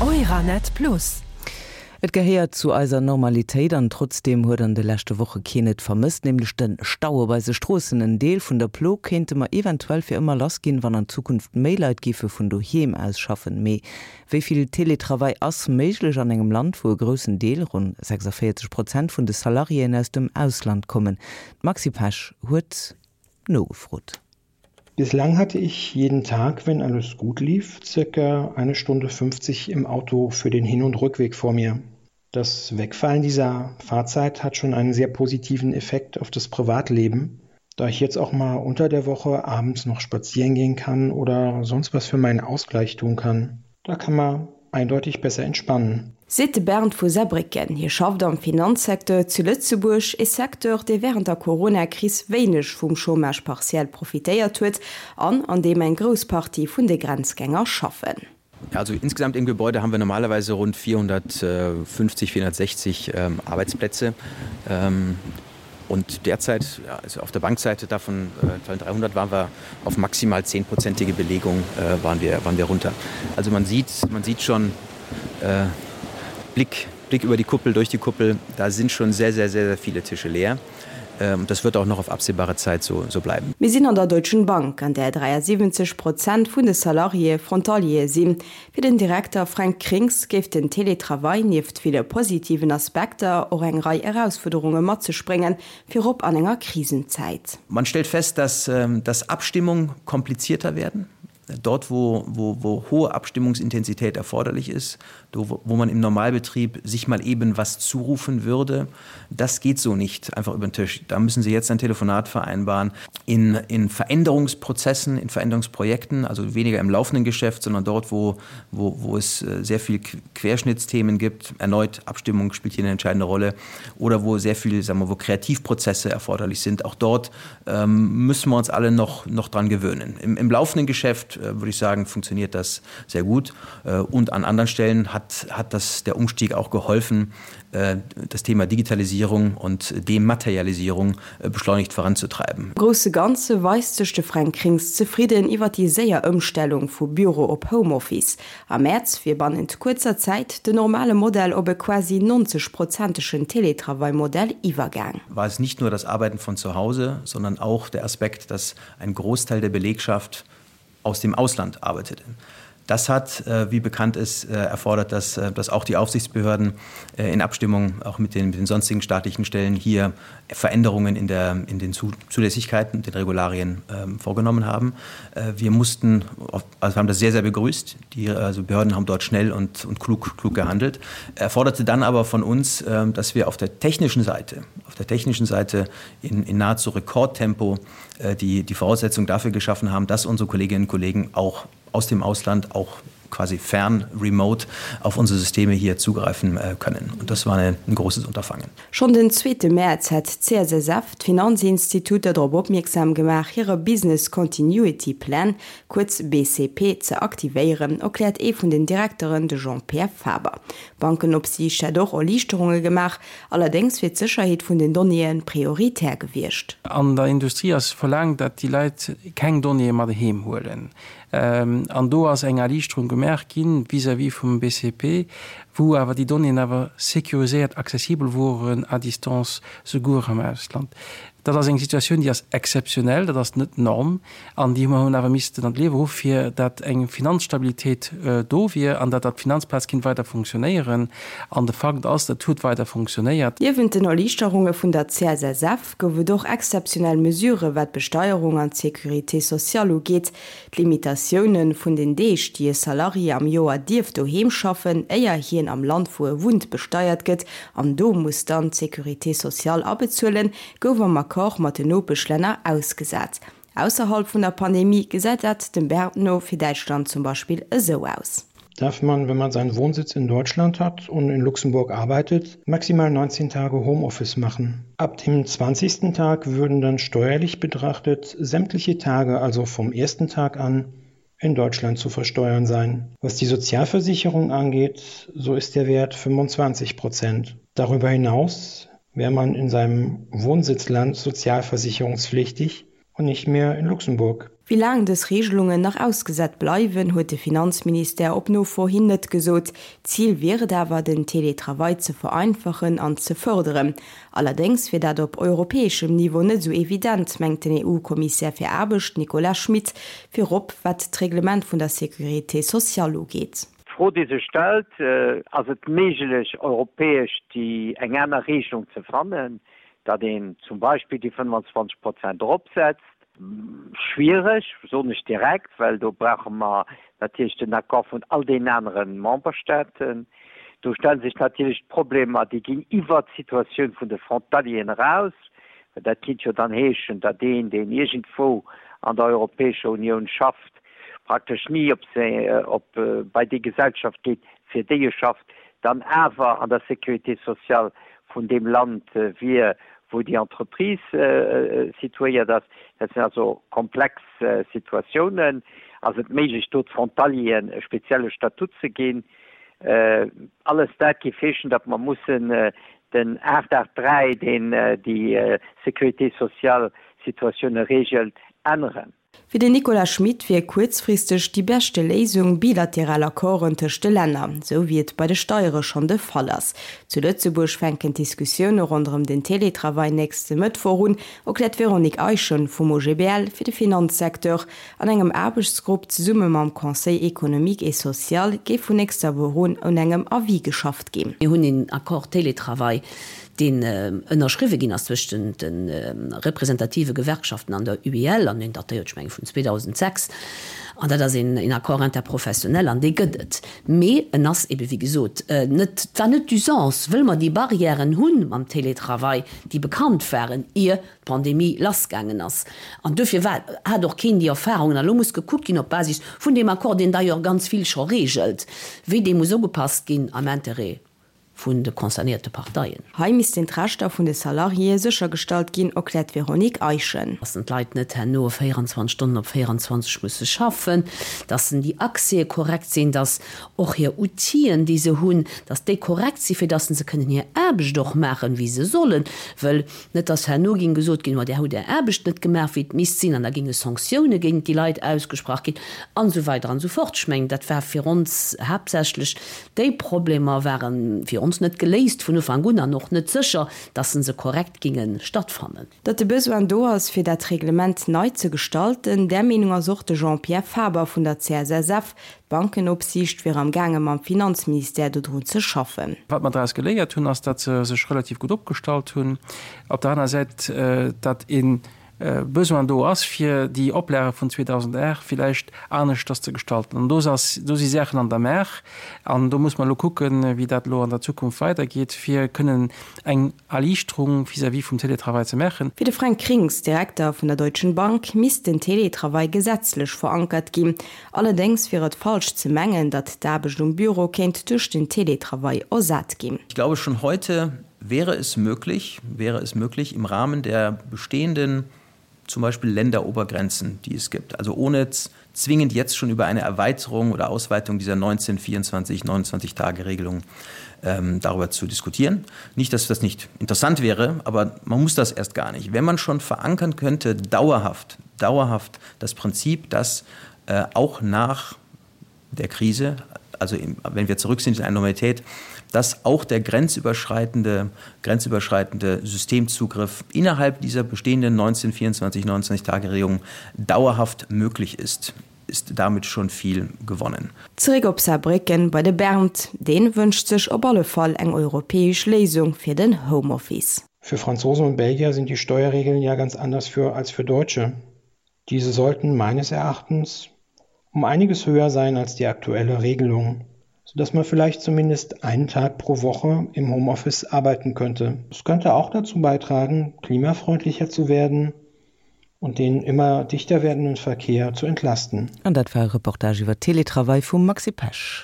Euranet Plus. Et gehéiert zu eiser Normalitéit an trotzdeem huet an de leschte Woche keen et vermësst, nämlech de Stau op eise Stroossen. En Deel vun der Plo kéinte mer eventuell fir ëmmer lass ginn, wann an Zukunft méi Leit géife vun doheem aus schaffen. Mee wéi vill Teletravail ass méiglech an engem Land, wou e groussen Deel, ronn 46 Prozent, vun de Salariéen aus dem Ausland kommen? D'Maxi Pesch huet nogefrot. Bislang hatte ich jeden Tag, wenn alles gut lief, circa eine Stunde 50 im Auto für den Hin- und Rückweg vor mir. Das Wegfallen dieser Fahrzeit hat schon einen sehr positiven Effekt auf das Privatleben, da ich jetzt auch mal unter der Woche abends noch spazieren gehen kann oder sonst was für meinen Ausgleich tun kann. Da kann man eindeutig besser entspannen. Seet de Bernd vu Saarbrécken. Hie schafft am Finanzsecteur zu Lëtzebuerg, ee Secteur, dee wärend der Corona-Kris wéineg vum Chômage partiel profitéiert huet an an deem eng grouss Partie vun de Grenzgänger schaffen. Also insgesamt im Gebäude haben wir normalerweise rund 450, 460 Arbeitsplätze. Und derzeit also auf der Bankseite davon äh, 300 waren wir auf maximal zehnprozentige Belegung äh, waren wir waren wir runter. Also man sieht man sieht schon äh, Blick Blick über die Kuppel durch die Kuppel, da sind schon sehr sehr sehr sehr viele Tische leer. Ähm, das wird auch noch auf absehbare Zeit so so bleiben. Mir sinn an der Deutschen Bank, an där 73 Prozent vun de Salariéë Frontaliere sinn. Fir den Direkter Fränk Krings géif den Teletravail nieft ville positiven Aspekter och eng Rei Erausfuerderunge mat sech bréngen, virop an enger Krisenzäit. Man stellt fest, dass dass Abstimmung komplizierter werden. Dort wo, wo, wo hohe Abstimmungsintensität erforderlich ist, do, wo man im Normalbetrieb sich mal eben was zurufen würde, das geht so nicht einfach über den Tisch. Da müssen Sie jetzt ein Telefonat vereinbaren. In, in Veränderungsprozessen, in Veränderungsprojekten, also weniger im laufenden Geschäft, sondern dort, wo, wo, wo es äh, sehr viel Querschnittsthemen gibt, erneut Abstimmung spielt hier eine entscheidende Rolle oder wo sehr viel sagen wir, wo Kreativprozesse erforderlich sind. Auch dort ähm, müssen wir uns alle noch, noch dran gewöhnen. Im, im laufenden Geschäft äh, würde ich sagen, funktioniert das sehr gut. Äh, und an anderen Stellen hat, hat das der Umstieg auch geholfen, äh, das Thema Digitalisierung und Dematerialisierung äh, beschleunigt voranzutreiben. Am grousse Ganze weist sech de Fränk Krings zefridden iwwer déi séier Ëmstellung vu Büro op Homeoffice. Am Mäerz wier bannent kuerzer Zäit den normale Modell op e quasi 90 prozentegen Teletravail-Modell iwwergaang. War es nicht nur das Arbeiten von zu Hause, sondern auch der Aspekt, dass ein Großteil der Belegschaft aus dem Ausland arbeitete. Das hat, äh, wie bekannt ist, äh, erfordert, dass, äh, dass auch die Aufsichtsbehörden in Abstimmung auch mit den, mit den sonstigen staatlichen Stellen hier Veränderungen in, der, in den Zulässigkeiten, den Regularien ähm, vorgenommen haben. Wir mussten, also haben das sehr, sehr begrüßt. Die also Behörden haben dort schnell und, und klug, klug gehandelt. Erforderte dann aber von uns, ähm, dass wir auf der technischen Seite, auf der technischen Seite in, in nahezu Rekordtempo die, die Voraussetzung dafür geschaffen haben, dass unsere Kolleginnen und Kollegen auch aus dem Ausland auch quasi fern remote auf unsere Systeme hier zugreifen äh, können. Und das war eine, ein großes Unterfangen. Schonn den zweete Mäerz hätt d'CSSF d'Finanzinstituter drop opmierksam gemaach, hire Business Continuity Plan, kuerz BCP, ze aktivéieren, erkläert ee vun den Direkteren, de Jean-Pierre Faber. D'Bankenopsiicht hätt och Erliichterunge gemaach, allerdéngs wier d'Sécherheet vun den Donnéeë prioritär gewiescht. An der Industrie ass verlaangt, datt déi Leit keng Donnéeë mat heem huelen. An do ass eng Erliichterung gemaach gi vis-à-vis vum BCP, wou awer déi Donnéeën awer sécuriséiert accessibel woren à distance, souguer am Ausland. Dat ass eng Situatioun, déi ass exzeptionell, dat ass net d'Norm. An déi hu mer hunn awer missten an d'Liewe ruffe fir dat eng Finanzstabilitéit do wier an dat dat d'Finanzplaz kinnt weider funktionéieren. An de Fakt ass, dat huet weider funktionéiert. Niewent den Erliichterunge vun der CSSF gouf et och exzeptionell Mesurë wat d'Besteierung an d'Sécurité sociale ugeet. D'Limitatioune vun den Deeg, déi e Salarié am Joer dierf doheem schaffen, éier hien am Land wou e wunnt besteiert gëtt an do muss dann d'Sécurité sociale abezuelen, gouf am Accord mat den Nopeschlänner ausgesat. Ausserhalb vun der Pandemie gesäit dat dem Bernd no fir Däitschland zum Beispill esou aus. Darf man, wenn man seinen Wohnsitz in Deutschland hat und in Luxemburg arbeitet, maximal 19 Tage Homeoffice machen. Ab dem 20. Tag würden dann steuerlich betrachtet sämtliche Tage, also vom ersten Tag an, in Deutschland zu versteuern sein. Was die Sozialversicherung angeht, so ist der Wert 25 Prozent. Darüber hinaus wäre man in seinem Wohnsitzland sozialversicherungspflichtig und nicht mehr in Luxemburg. Wéi laang dës Reegelungen nach ausgesat bleiwen, huet de Finanzministère op Nofro hin net gesot. Zil wier et awer, den Teletravail ze vereinfachen an ze fërderen. Allerdéngs wier dat op europäeschem Niveau net esou evident, mengt den EU-Kommissär fir Aarbecht Nicolas Schmit, virop wat d'Reglement vun der Sécurité sociale ugeet. D'Fro, déi sech stellt, Ass et méiglech, europäesch déi eng aner Regelung ze fannen, datt een zum Beispill déi 25 Prozent eropsetzt? Schwiereg, soen ech direkt, well do brauche mer natierlech den Accord vun all deenen anere Memberstaaten. Do stelle sech natierlech d'Problemer, déi ginn iwwert d'Situatioun vun de Frontalieren eraus, well dat kinnt jo dann heeschen, datt een, deen iergendwou an der Europäescher Unioun schafft, praktesch ni op op bei déi Gesellschaft geet, fir déi e schafft, dann awer an der Sécurité sociale vun deem Land wier, wou déi Entreprise situéiert ass. Dat sinn also komplex Situatiounen. Ass et méiglech, do d'Frontalieren e spezielle Statut ze ginn? Alles dat géif heeschen, datt mer mussen den 883, deen déi Sécurité sociale Situatioune regelt, änneren. Fir den Nicolas Schmit wier kuerzfristeg déi beschte Léisung bilateral Accorden tëscht de Länner, esou wéi et bei de Steiere schonn de Fall ass. Zu Lëtzebuerg fänken d'Diskussioune ronderëm den Teletravail nächste Mëttwoch un, erkläert d'Véronique Eischen vum OGBL fir de Finanzsecteur. An engem Aarbechtsgrupp zesumme mam Conseil économique et social géif vun nächster Woch un un engem Avis geschafft ginn. Mir hunn een Accord Télétravail, deen ënnerschriwwe ginn ass zwëschent de representative Gewerkschaften an der UEL, an deen datéiert, ech mengen, vun 2006, an dat ass een Accord interprofessionnel, an dee gëtt et. Mee en ass ebe wéi gesot net, et war net d'Usance, wëll mer déi Barrièren hu mam Télétravail, déi bekannt waren, ier d'Pandemie lassgaangen ass. An duerfir war, hat och keen déi Erfahrungen. An elo muss gekuckt ginn op Basis vun deem Accord, deen d'ailleurs ganz vill scho regelt, wéi dee muss ugepasst ginn am Intérêt vun de concernéierte Parteien. Hei missten d'Rechter vun de Salariéë séchergestallt ginn, erkläert d'Véronique Eischen. Dass en d'Leit net herno 24 Stonnen op 24 musse schaffen, dass en déi Accèse korrekt sinn, dass och hir Outill'en, déi se hunn, dass déi korrekt sinn, fir dass se kënnen hir Aarbecht och maachen, wéi se sollen. Wëll net dass herno géing gesot ginn, ma Där hutt Är Aarbecht net gemaach, wéi et misst sinn, an da géinge Sanktioune géint déi Leit ausgesprach ginn, an esou weider an esou fort. Ech mengen, dat war fir ons haaptsächlech Déi Problemer ware fir ons net geléist vun Ufank un an och net sécher, dass se korrekt ginge stattfannen. Datt de Besoin do ass, fir dat Reglement nei ze gestalten, där Meenung ass och de Jean-Pierre Faber vun der CSSF. D'Bankenopsiicht wier am gaange mam Finanzministère dodrun ze schaffen. Wat mer draus geléiert hunn, ass, datt se sech relativ gutt opgestallt hunn. Op der aner Säit, datt ee Besoin do ass, fir déi Oplage vun 2008 villäicht aneschters ze gestalten. An do ass, do si Saachen an der Maach an do muss mer elo kucken, wéi dat elo an der Zukunft weidergeet, fir kënnen eng Erliichterung vis-à-vis vum Télétravail ze maachen. Fir de Fränk Krings, Direkter vun der Deutschen Bank, misst den Télétravail gesetzlech verankert ginn. Allerdéngs wier et falsch ze mengen, datt d'Aarbecht um Büro kéint duerch den Télétravail ersat ginn. Ich glaube schon heute wäre es möglich, wäre es möglich im Rahmen der bestehenden zum Beispiel Länderobergrenzen, die es gibt, also ohne zwingend jetzt schon über eine Erweiterung oder Ausweitung dieser 1924 29 Tage Regelung ähm, darüber zu diskutieren. Nicht, dass das nicht interessant wäre, aber man muss das erst gar nicht. Wenn man schon verankern könnte, dauerhaft, dauerhaft das Prinzip, dass äh, auch nach der Krise, also im, wenn wir zurück sind in eine Normalität, dass auch der grenzüberschreitende, grenzüberschreitende Systemzugriff innerhalb dieser bestehenden 1924 29 Tageregelung dauerhaft möglich ist ist damit schon viel gewonnen. Zeréck op Saarbrécken bei de Bernd. Deen wënscht sech op alle Fall eng europäesch Léisung fir den Homeoffice. Für Franzosen und Belgier sind die Steuerregeln ja ganz anders für als für Deutsche. Diese sollten meines Erachtens um einiges höher sein als die aktuelle Regelung, sodass man vielleicht zumindest einen Tag pro Woche im Homeoffice arbeiten könnte. Es könnte auch dazu beitragen, klimafreundlicher zu werden und den immer dichter werdenden Verkehr zu entlasten. An dat war e Reportage iwwer Teletravail vum Maxi Pesch.